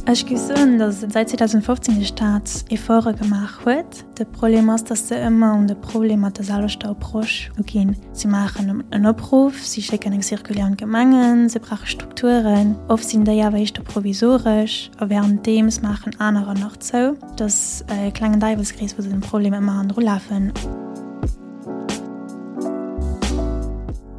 Ech géif soen, datt säit 2015 de Staat Efforte gemaach huet. De Problem ass, datt se ëmmer un de Problem mat der selwechter Approche uginn. Si maachen en Opruff, si schécken eng Circulaire un d'Gemengen, se brauche Strukturen. Oft sinn déi awer éischter provisoresch a wärenddeems maachen anerer nach zou. Et ass e klengen Däiwelskrees, wou se dem Problem ëmmer hannendru lafen.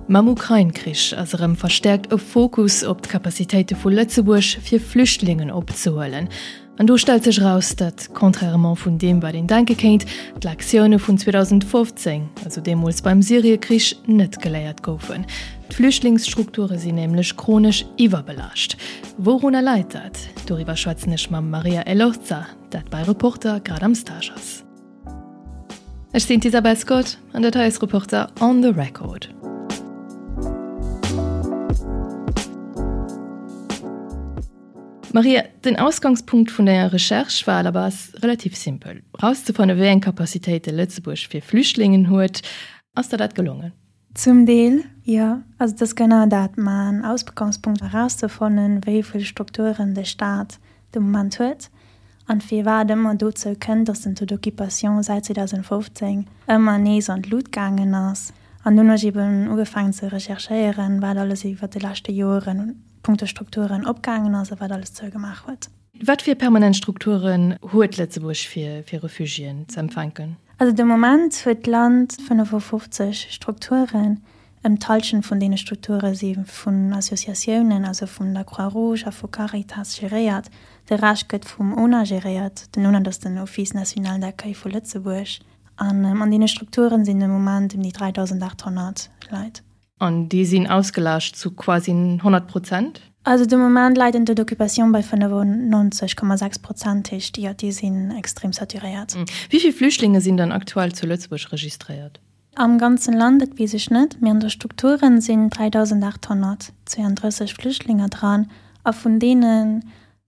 Mam Ukrain-Krich ass erëm verstäerkt e Fokus op d'Capacitéite vu Lëtzebuerg, fir Flüchtlingen opzehuelen. An do stellt sech eraus, datt, contrairement vun deem wat een denke kéint, d'Lektioune vun 2015, also deemools beim Syrie-Krich, net geléiert goufen. D'Flüchtlingsstrukture sinn nämlech chronesch iwwerbelaascht. Wourunner läit dat? Doriwwer schwätzen ech mam Maria Elorza, dat bei Reporter grad am Stage ass. Ech sinn d'Isabel Scott an dat hei ass Reporter on the Record. Maria, den Ausgangspunkt vun denger Recherche war à la base relativ simpel, rauszefanne wéi eng Capacitéite Lëtzebuerg fir Flüchtlingen huet. Ass der dat gelongen? Zum Deel, jo. Also et ass genau dat main Ausgangspunkt, erauszefannen, wéi vill Strukturen de Staat de Moment huet an firwat et ëmmer dozou kënnt, datt den Taux d'occupation säit 2015 ëmmer nees an d'Lut gaangen ass. An dunn hu ech eben ugefaangen ze recherchéieren, wat alles iwwer de leschte Joeren punkto Strukturen opgaangen ass a wat alles zougemaach huet. Wat fir permanent Strukturen huet Lëtzebuerg fir Refugiéen ze empfänken? Also de Moment huet d'Land 55 Strukturen. Ëm d'Hallschent vun deene Strukture si vun Associatiounen, also vun der Croix-Rouge a vu Caritas geréiert. De Rescht gëtt vum ona geréiert. Den ona, dat ass den Office national d'accueil vu Lëtzebuerg. An an deene Strukturen sinn de Moment ëm déi 3.800 Leit. An déi sinn ausgelaascht zu quasi 100 Prozent? Also de Moment läit den Taux d'occupation bei 95,6 Prozent, heescht jo, déi sinn extrem saturéiert. Wéi vill Flüchtlinge sinn dann aktuell zu Lëtzebuerg registréiert? Am ganzen Land, dat weess ech net, mee an de Strukturen sinn 3.832 Flüchtlinger dran a vun deene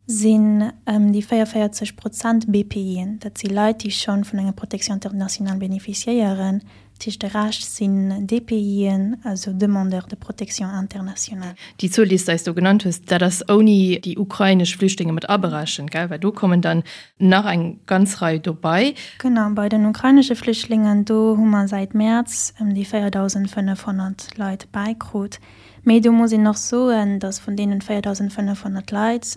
sinn ëm déi 44 Prozent BPIen, dat si Leit, déi scho vun enger Protection internationale bénéficiéieren. Dat heescht, de Rescht sinn DPIen, also Demandeurs de protection internationale. Déi Zuel, déi s de eis do genannt hues, dat ass ouni déi ukrainesch Flüchtlinge mat aberechent, gell? Well do kommen dann nach eng ganz Rei dobei. Genau, bei den ukrainesche Flüchtlingen, do hu mer säit Mäerz ëm déi 4.500 Leit bäikrut. Mee do muss een och soen, datt vun deenen 4.500 Leit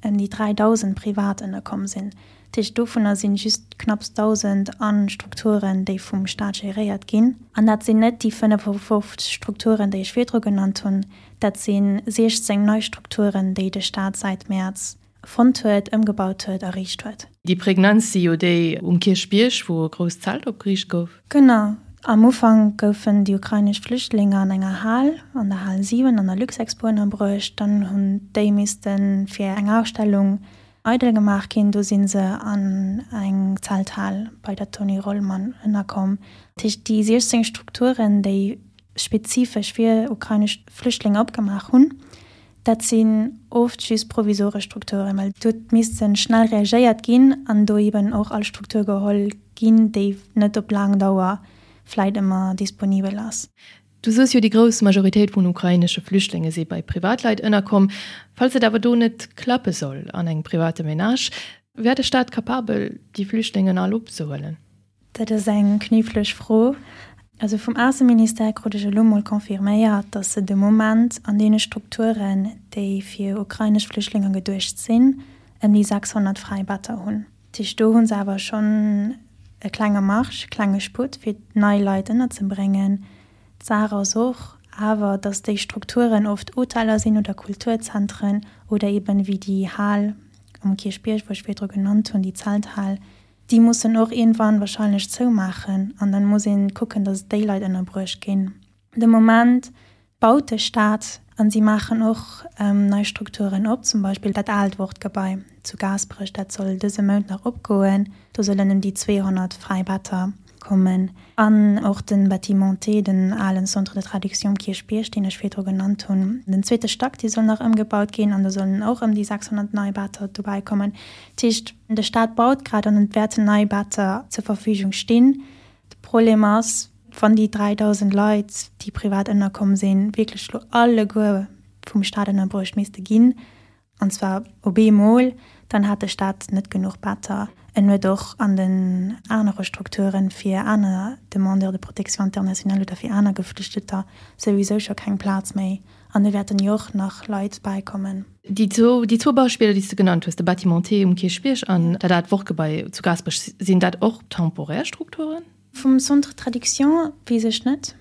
ëm déi 3.000 privat ënnerkomm sinn. Dat heescht, dovunner sinn just knapps 1.000 a Strukturen, déi vum Staat geréiert ginn. An dat sinn net déi 55 Strukturen, déi ech virdru genannt hunn, dat si 16 nei Strukturen, déi de Staat säit Mäerz fonnt huet, ëmgebaut huet, erriicht huet. Déi prägnantst si jo déi um Kierchbierg, wou e grousst Zelt opgeriicht gouf. Genau. Am Ufank goufen déi ukrainesch Flüchtlinge an enger Hal, an der Hal 7 an der Luxexpo ënnerbruecht. Dann hunn déi misste fir eng Ausstellung eidel gemaach ginn. Do si se an eng Zelthal bei der Tony Rollmann ënnerkomm. Dat heescht, déi 16 Strukturen, déi spezifesch fir ukrainesch Flüchtlinge opgemaach hunn, Dat sinn oft just provisoresch Strukturen, well do huet misste schnell reagéiert ginn an do eben och all Struktur geholl ginn, déi net op laang Dauer vläit ëmmer disponibel ass. Du soos jo, déi grouss Majoritéit vun ukrainesche Flüchtlinge si bei Privatleit ënnerkomm. Falls et awer do net klappe soll an engem private Menage, wär de Staat capabel, déi Flüchtlingen all opzehuelen? Dat ass eng kniffleg Fro. Also vum Ausseministère krut ech elo mol confirméiert, datt se de Moment an deene Strukturen, déi fir ukrainesch Flüchtlinge geduecht sinn, ëm déi 600 fräi Better hunn. Dat heescht, do hu se awer schonn e klenge Marge, e klenge Sputt, fir nei Leit ënnerzebréngen. D'Saach ass och awer, datt déi Strukturen oft Hoteller sinn oder Kulturzentren oder eben, wéi déi Hal um Kierchbierg, wou ech virdru genannt hunn, déi Zelthal, Déi mussen och iergendwann wahrscheinlech zoumaachen an dann muss een kucken, dass déi Leit ënnerbruecht ginn. De Moment baut de Staat an si maachen och nei Strukturen op, zum Beispill dat aalt Wortgebai zu Gaasperech, dat soll dëse Mount nach opgoen, do sollen ëm déi 200 fräi Better kommen. An och de Bâtiment T, den alen Centre de traduction um Kierchbierg, deen ech virdru genannt hunn, den zweete Stack, dee soll nach ëmgebaut ginn an do sollen och ëm déi 600 nei Better dobäi kommen. Dat heescht, de Staat baut grad an et wäerten nei Better zur Verfügung stinn. De Problem ass, wann déi 3.000 Leit, déi privat ënnerkomm sinn, wierklech elo alleguer vum Staat ënnerbruecht misste ginn. An zwar op eemol, dann hat de Staat net genuch Better. En huet och an den anere Strukturen fir aner Demandeurs de protection internationale oder fir aner Geflüchteter souwisou scho keng Plaz méi. An do wäerten jo och nach Leit bäikommen. Déi zwou, déi zwou Beispiller, déi s de genannt hues, de Bâtiment T um Kierchbierg an dat aalt Wortgebai zu Gaasperech, sinn dat och temporär Strukturen? Vum Centre de traduction weess ech net.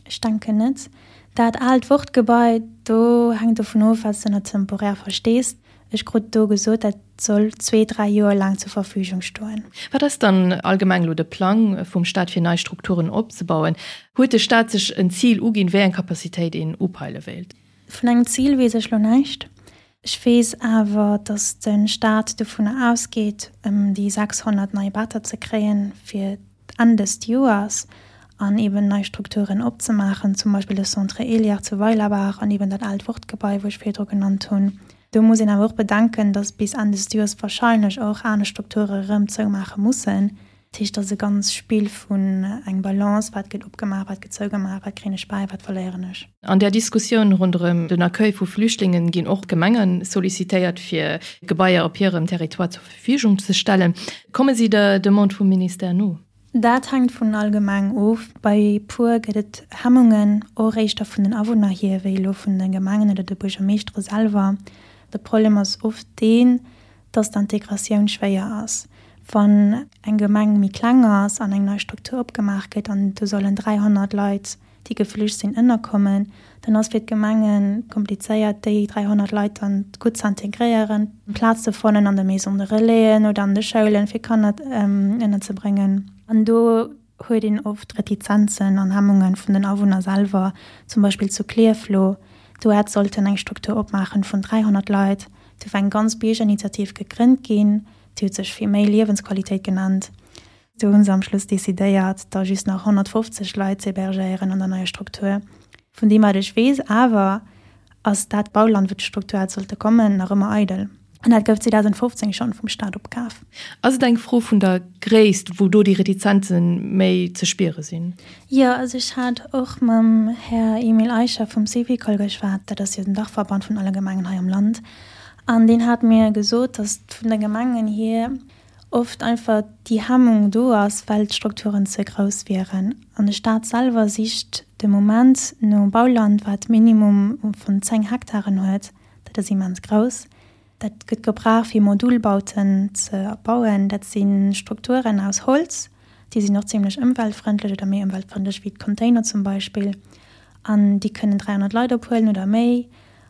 Ech denken net. Dat aalt Wortgebai, do hänkt dovun of, wat s de ënner temporär verstees. Ech krut do gesot, dat soll zwee, dräi Joer laang zur Verfügung stoen. Wat ass dann allgemeng elo de Plang vum Staat fir nei Strukturen opzebauen? Huet de Staat sech en Zil uginn, wéi eng Capacitéit een upeile wéilt? Vun engem Zil weess ech lo näischt. Ech weess awer, datt de Staat dovunner ausgeet, ëm déi 600 nei Better ze kréien fir d'Enn dëst Joers an eben nei Strukturen opzemaachen, zum Beispill de Centre Eliard zu Weilerbaach an eben dat aalt Wortgebai, wou ech virdru genannt hunn. Do muss een awer och bedenken, datt bis Enn des Joers wahrscheinlech och aner Strukture erëm zoumaache mussen. Dat heescht, et ass e ganz Spill vun eng Balance, wat gëtt opgemaach, wat gëtt zougemaach, wat kréien ech bäi, wat verléieren ech. An där Diskussioun ronderëm den Accueil vu Flüchtlingen ginn och d'Gemenge sollicitéiert, fir Gebaier op hirem Territoire zur Verfügung ze stellen. Komme si der Demande vum Ministère no? Dat hänkt vun all Gemeng of. Bei puer gëtt et Hemmungen, och éischter vun den Awunner hier wéi elo vun de Gemengen oder de Buergermeeschtere selwer. De Problem ass oft deen, dass d'Integratioun schwéier ass. Wann eng Gemeng méi kleng ass an eng nei Struktur opgemaach gëtt an do sollen 300 Leit, déi geflücht sinn, ënnerkommen, dann ass fir d'Gemenge komplizéiert, déi 300 Leit dann gutt ze integréieren, Plaz ze fannen an de Maisons de relaisen oder an de Schoulen, fir Kanner ënnerzebréngen. An do huet een oft Retizenzen an Hemmunge vun den Awunner selwer, zum Beispill zu Klierf lo, do hätt sollten eng Struktur opmaachen vun 300 Leit, do war eng ganz Biergerinitiativ gegrënnt ginn, déi huet sech fir méi Liewensqualitéit genannt. Do hu se am Schluss decidéiert, da just nach 150 Leit z'hébergéieren an der neier Struktur. Vun deem wat ech weess awer, ass dat Bauland, wou d'Struktur hätt sollte kommen, nach ëmmer eidel. An dat gouf 2015 schonn vum Staat opkaf. Ass et eng Fro vun der Gréisst, wou do déi Retizenze méi ze spiere sinn? Jo, also ech hat och mam Här Emile Eicher vum Syvicol geschwat, dat ass jo den Dachverband vun alle Gemengen hei am Land, an deen hat mir gesot, datt vun de Gemengen hier oft einfach déi Hemmung do ass, well d'Strukturen ze grouss wieren. An de Staat selwer sicht de Moment no Bauland, wat Minimum vun 10 Hektaren huet. Dat ass immens grouss. Dat gëtt gebraucht, fir Modulbauten ze bauen. Dat si Strukturen aus Holz, déi sinn och zimlech ëmweltfrëndlech oder méi ëmweltfrëndlech wéi d'Container zum Beispill. An déi kënnen 300 Leit ophuelen oder méi.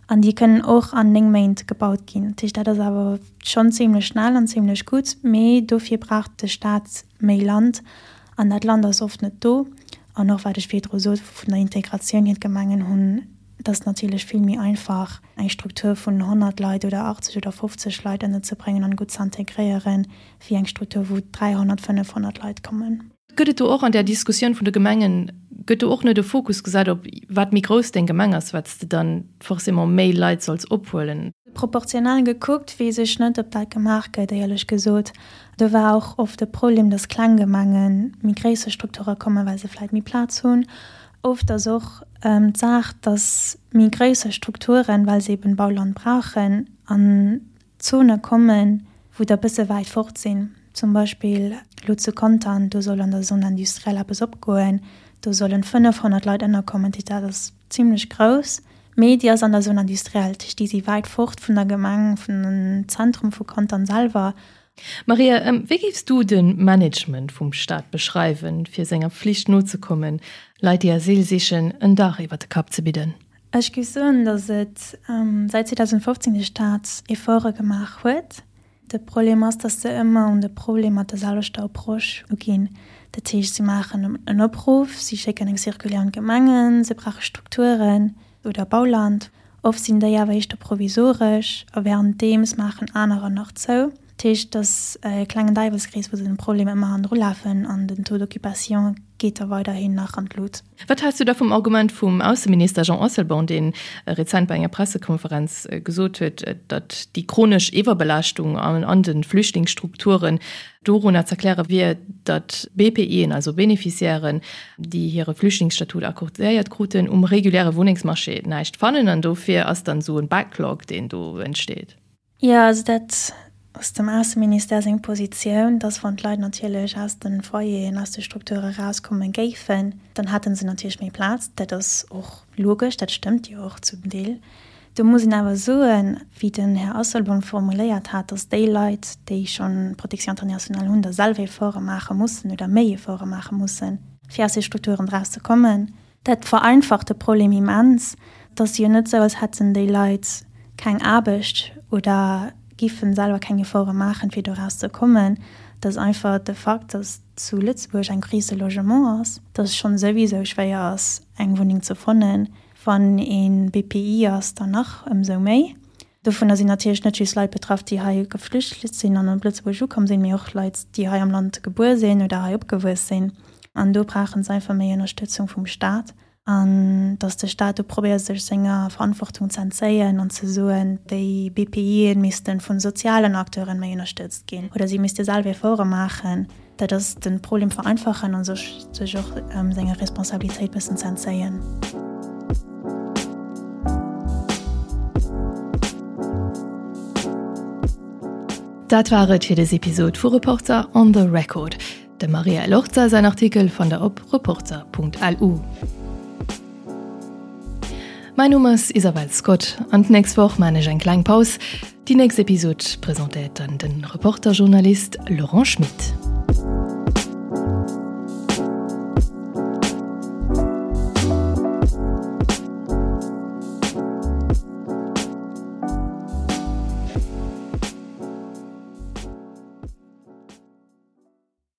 An déi kënnen och an 9 Méint gebaut ginn. Dat heescht, dat ass awer schonn zimlech schnell an zimlech gutt. Mee dofir brauch de Staat méi Land. An dat Land ass oft net do. An och wat ech virdru sot vun der Integratioun hier, d'Gemengen hunn, et ass natierlech vill méi einfach, eng Struktur vun 100 Leit oder 80 oder 50 Leit ënnerzebréngen an gutt ze integréieren, wéi eng Struktur, wou 300, 500 Leit kommen. Gëtt et do och an där Diskussioun vun de Gemengen, gëtt do och net e Fokus gesat op, wat méi grouss deng Gemeng ass, wat s de dann forcément méi Leit solls ophuelen? Proportional gekuckt weess ech net, ob dat gemaach gëtt, éierlech gesot. Do war och oft de Problem, datt kleng Gemenge méi gréisser Strukture kommen, well se vläicht méi Plaz hunn. Oft ass och d'Saach, datt méi gréisser Strukturen, well se eben Bauland brauchen, an Zone kommen, wou der bësse wäit fort sinn. Zum Beispill elo zu Contern, do soll an der Zone industrielle eppes opgoen, do sollen 500 Leit ënnerkommen. Dat ass zimlech grouss, mee déi ass an der Zone industrielle, dat heescht, déi si wäit fort vun der Gemeng, vun dem Zentrum vu Contern selwer. Maria, wéi géifs du de Management vum Staat beschreiwen, fir senger Flicht nozekommen, Leit, déi Asyl sichen, en Dach iwwer de Kapp ze bidden? Ech géif soen, datt et säit 2015 de Staat Efforte gemaach huet. De Problem ass, datt se ëmmer un de Problem mat der selwechter Approche uginn. Dat heescht, si maachen en Opruff, si schécken eng Circulaire un d'Gemengen, se brauche Strukturen oder Bauland. Oft sinn déi awer éischter provisoresch a wärenddeems maachen anerer nach zou. Dat heescht, et ass e klengen Däiwelskrees, wou se dem Problem ëmmer hannendru lafen an den Taux d'occupation geet da weiderhin nach an d'Lut. Wat häls du da vum Argument vum Ausseminister Jean Asselborn, dee rezent bei enger Pressekonferenz gesot huet, datt déi chronesch Iwwerbelaaschtung an de Flüchtlingsstrukturen dorunner z'erkläre wier, datt BPIen, also Beneficiairen, déi hire Flüchtlingsstatut accordéiert kruten, um reguläre Wunnengsmarché näischt fannen an dofir ass dann esou e Backlog, deen do entsteet? Jo, also dat ass dem Ausseministère seng Positioun, dass wann d'Leit natierlech aus de Foyeren, aus de Strukture erauskomme géifen, dann hätte se natierlech méi Plaz. Dat ass och logesch, dat stëmmt jo och zum Deel. Do muss een awer soen, wéi den Här Asselborn formuléiert hat, dass déi Leit, déi schonn Protection internationale hunn, da selwer Efforte maache mussen oder méi Efforte maache mussen, fir aus de Strukturen erauszekommen. Dat vereinfacht de Problem immens. Et ass jo net esou, als hätten déi Leit keng Aarbecht oder giffen selwer keng Efforte maachen, fir doraus ze kommen. Et ass einfach de Fakt, dass zu Lëtzebuerg eng Crise de logement ass, dass et schonn souwisou schwéier ass, eng Wunneng ze fannen. Wann ee BPI ass, dann nach ëmsou méi. Dovunner sinn natierlech net just Leit betraff, déi hei geflücht sinn an op Lëtzebuerg ukomm sinn, mee och Leit, déi hei am Land gebuer sinn oder hei opgewuess sinn. An do brauche se einfach méi Ënnerstëtzung vum Staat. An datt de Staat do probéiert, sech senger Verantwortung ze entzéien an ze soen, déi BPIen misste vu sozialen Acteuren méi ënnerstëtzt ginn oder si misste selwer Efforte maachen. Dat ass den Problem vereinfachen an sech sech och senger Responsabilitéit bëssen ze entzéien. Dat war et fir des Episod vu Reporter on the Record. Dem Maria Elorza säin Artikel fannt der op reporter.lu. Mäin Numm ass Isabel Scott an d'nächst Woch maan ech eng kleng Paus. Déi nächst Episod presentéiert dann den Reporter-Journalist Laurent Schmit.